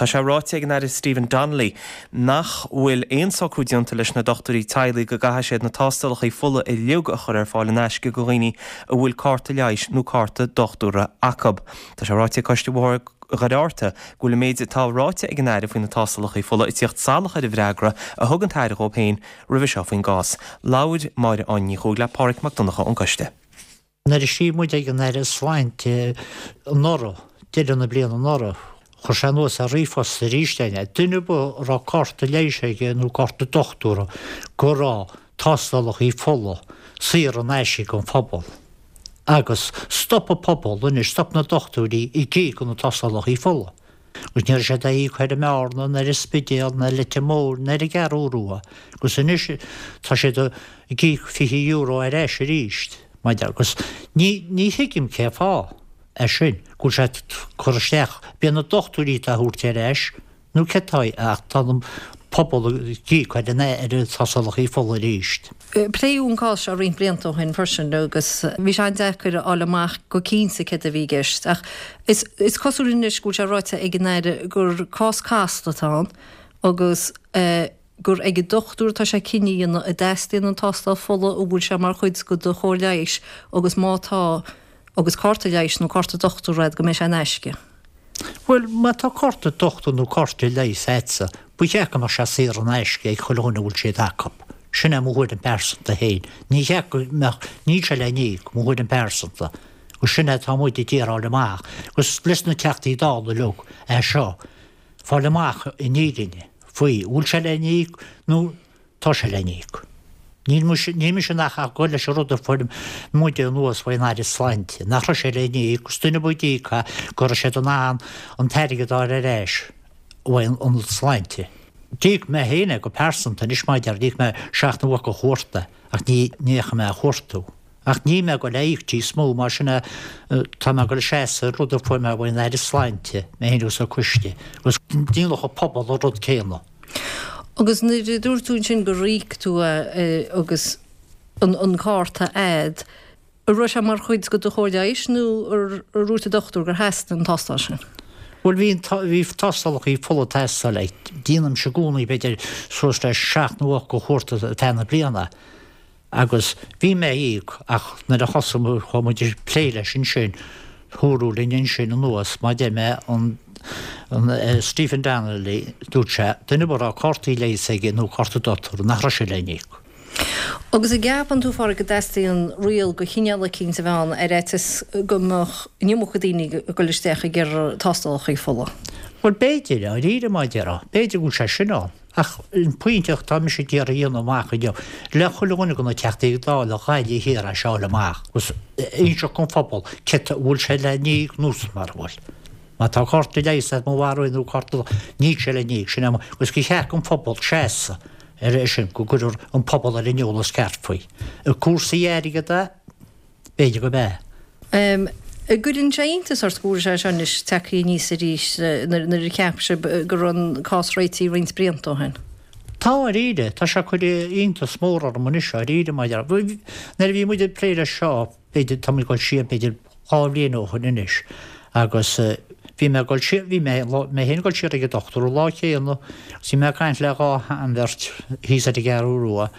Tá sé ráite ag an Aire Stephen Donnelly nach bhfuil aon socrú déanta leis na dochtúirí teaghlaigh go gcaithfidh siad na tástálacha fola uilig a chur ar fáil in aisce do dhaoine a bhfuil cárta leighis nó cárta dochtúra acu. Tá sé ráite ag Coiste Bhóthar Dhoire Fhatharta go bhfuil an méid atá ráite ag an Aire faoi na tástálacha fola ag tíocht salach ar an bhfreagra a thug an tAire dhóibh féin roimhe seo faoin gcás. Labhair Máire Áine Ní Chuaig le Páraic Mac Donncha ón gcoiste. Nuair a scríobh muid ag an Aire Sláinte anuraidh, deireadh na bliana anuraidh, chuir sé anuas ar ríomhphost arís é, duine ar bith a raibh cárta leighis aige nó cárta dochtúra go raibh tástálacha fola saor in aisce don phobal. Agus stop an pobal anois, stop na dochtúirí ag íoc na tástálacha fola. Agus ní raibh siad á íoc ar an mBearna, ná ar an Spidéal, ná ar Leitir Móir, ná ar an gCeathrú Rua. Agus anois tá siad ag íoc €20 ar ais arís. Maidir agus ní, ní thuigim cé fáth é sin, go bhfuil sé ag cur isteach, b'é na dochtúirí atá á thabhairt ar ais, nó cé tá, ach tá an pobal ag íoc ar an, ar na tástálacha fola arís. Pléadh an cás seo roinnt blianta ó shin freisin agus bhí sé an-deacair a fháil amach go cinnte céard a bhí i gceist ach is cosúil anois go bhfuil sé ráite ag an Aire gur cás casta atá ann agus gur ag an dochtúir atá sé cinneadh a dhéanamh an dteastaíonn an tástáil fola, an bhfuil sé mar chuid de do chóir leighis agus má tá agus cárta leighis nó cárta dochtúra agat go mbeidh sé in aisce. Bhuel, má tá cárta dochtúra nó cárta leighis agatsa, ba cheart go mbeadh sé saor in aisce ag chuile dhuine a bhfuil siad acu. Sin é mo thuairim pearsanta féin. Ní cheart go mbeadh, níl sé le n-íoc, mo thuairim pearsanta. Agus sin é atá muid ag iarraidh fháil amach. Agus leis na Teachtaí Dála uilig é seo, fáil amach an fhírinne faoi, bhfuil sé le n-íoc nó Tá sé le n-íoc. Níl mise, níl mise ach ag goil leis an rud a fuair muide anuas faoin Aire Sláinte, nach raibh sé le n-íoc, agus duine ar bith a d'íoc é, go raibh siad in ann an t-airgead a fháil ar ais uaidh an tSláinte. D'íoc mé féin é go pearsanta anois mar a deir, d'íoc mé seacht nó ocht de chuarta ach ní, ní fhaca mé a chuartú. Ach níl mé ag goil a íoc níos mó, mar sin é, tá mé ag goil a seasamh ar rud a fuair mé uaidh an Aire Sláinte, mé féin agus an coiste, agus déanfadh an pobal an rud céanna. Agus nuair a dúirt tú ansin gur íoc tú é agus an cárta a'd, an raibh sé mar chuid de do chóir leighis nó ar dhúirt an dochtúir gur theastaigh an tástáil sin? Bhuel bhí, bhí tástálacha fola ag teastáil like déanaimse i gcónaí b'fhéidir suas le seacht nó ocht de chuarta ar feadh na bliana. Agus bhí mé ag íoc ach nuair a thosaigh muid, chuaigh muid ag plé leis ansin, dúradh linn ansin anuas, mar a deir mé, an, an Stephen Donnelly, dúirt sé, duine ar bith a raibh cártaí leighis aige nó cárta dochtúra, nach raibh sé le n-íoc. Agus an gceapann tú, a Pháraic, go dteastaíonn riail de chineál eicínt a bheith ann ar fhaitíos go mbeadh an iomarca daoine ag dul isteach ag iarraidh tástálacha fola? Bhuel, b'fhéidir, dáiríre, mar a déarfá, b'fhéidir go bhfuil sé sin ann. Ach an pointe atá mise ag iarraidh a dhéanamh amach inniu, le chuile dhuine de na Teachtaí Dála Ghaillimh Thiar é seo a fháil amach agus inseacht don phobal cé an bhfuil sé le n-íoc nó mara bhfuil. Má tá cárta leighis agat mo bharúil nó cárta níl sé le n-íoc, sin é agus gur cheart don phobal seasamh ar sin, go gcuirfear an pobal ar an eolas ceart faoi. Cúrsaí airgid é. B'fhéidir gurb ea. An gcuireann sé iontas ort go bhfuil sé seo anois tagtha aníos arís nuair a cheap sibh go raibh an cás réitithe roinnt blianta ó shin? Tá, dáiríre. Tá sé ag cur iontas mór orm anois, dáiríre, mar nuair a bhí muid ag plé leis seo, b'fhéidir, tá muid ag dul siar b'fhéidir 2 bhliain ó shin anois, agus bhí mé ag dul siar, bhí mé, mé féin ag dul siar ag an dochtúir an lá céanna agus bhí mé ag caint le dhá sheanbheirt thíos ar an gCeathrú Rua,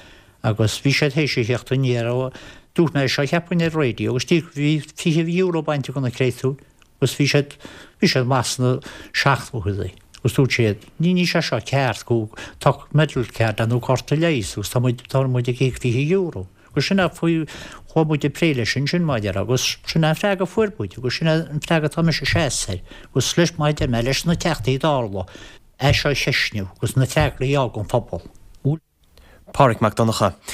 Agus bhí siad théis a theacht aniar ó, dúirt mé seo cheapfainn ar raidió agus bhí €20 bainte de na créatúir agus bhí siad, bhí siad maith sna seachtóidí agus dúirt siad, ní, níl sé seo ceart go, tá medical card nó cárta leighis agus tá muid, tá muid ag íoc €20. Agus sin é faoi, chuaigh muid ag plé leis ansin mar a déarfá agus sin é an freagra a fuair muid agus sin é an freagra atá mise ag seasamh air agus leis, mar a deir mé, leis na Teachtaí Dála é seo a cheistniú agus na freagraí a fháil ón phobal. Páraic Mac Donncha.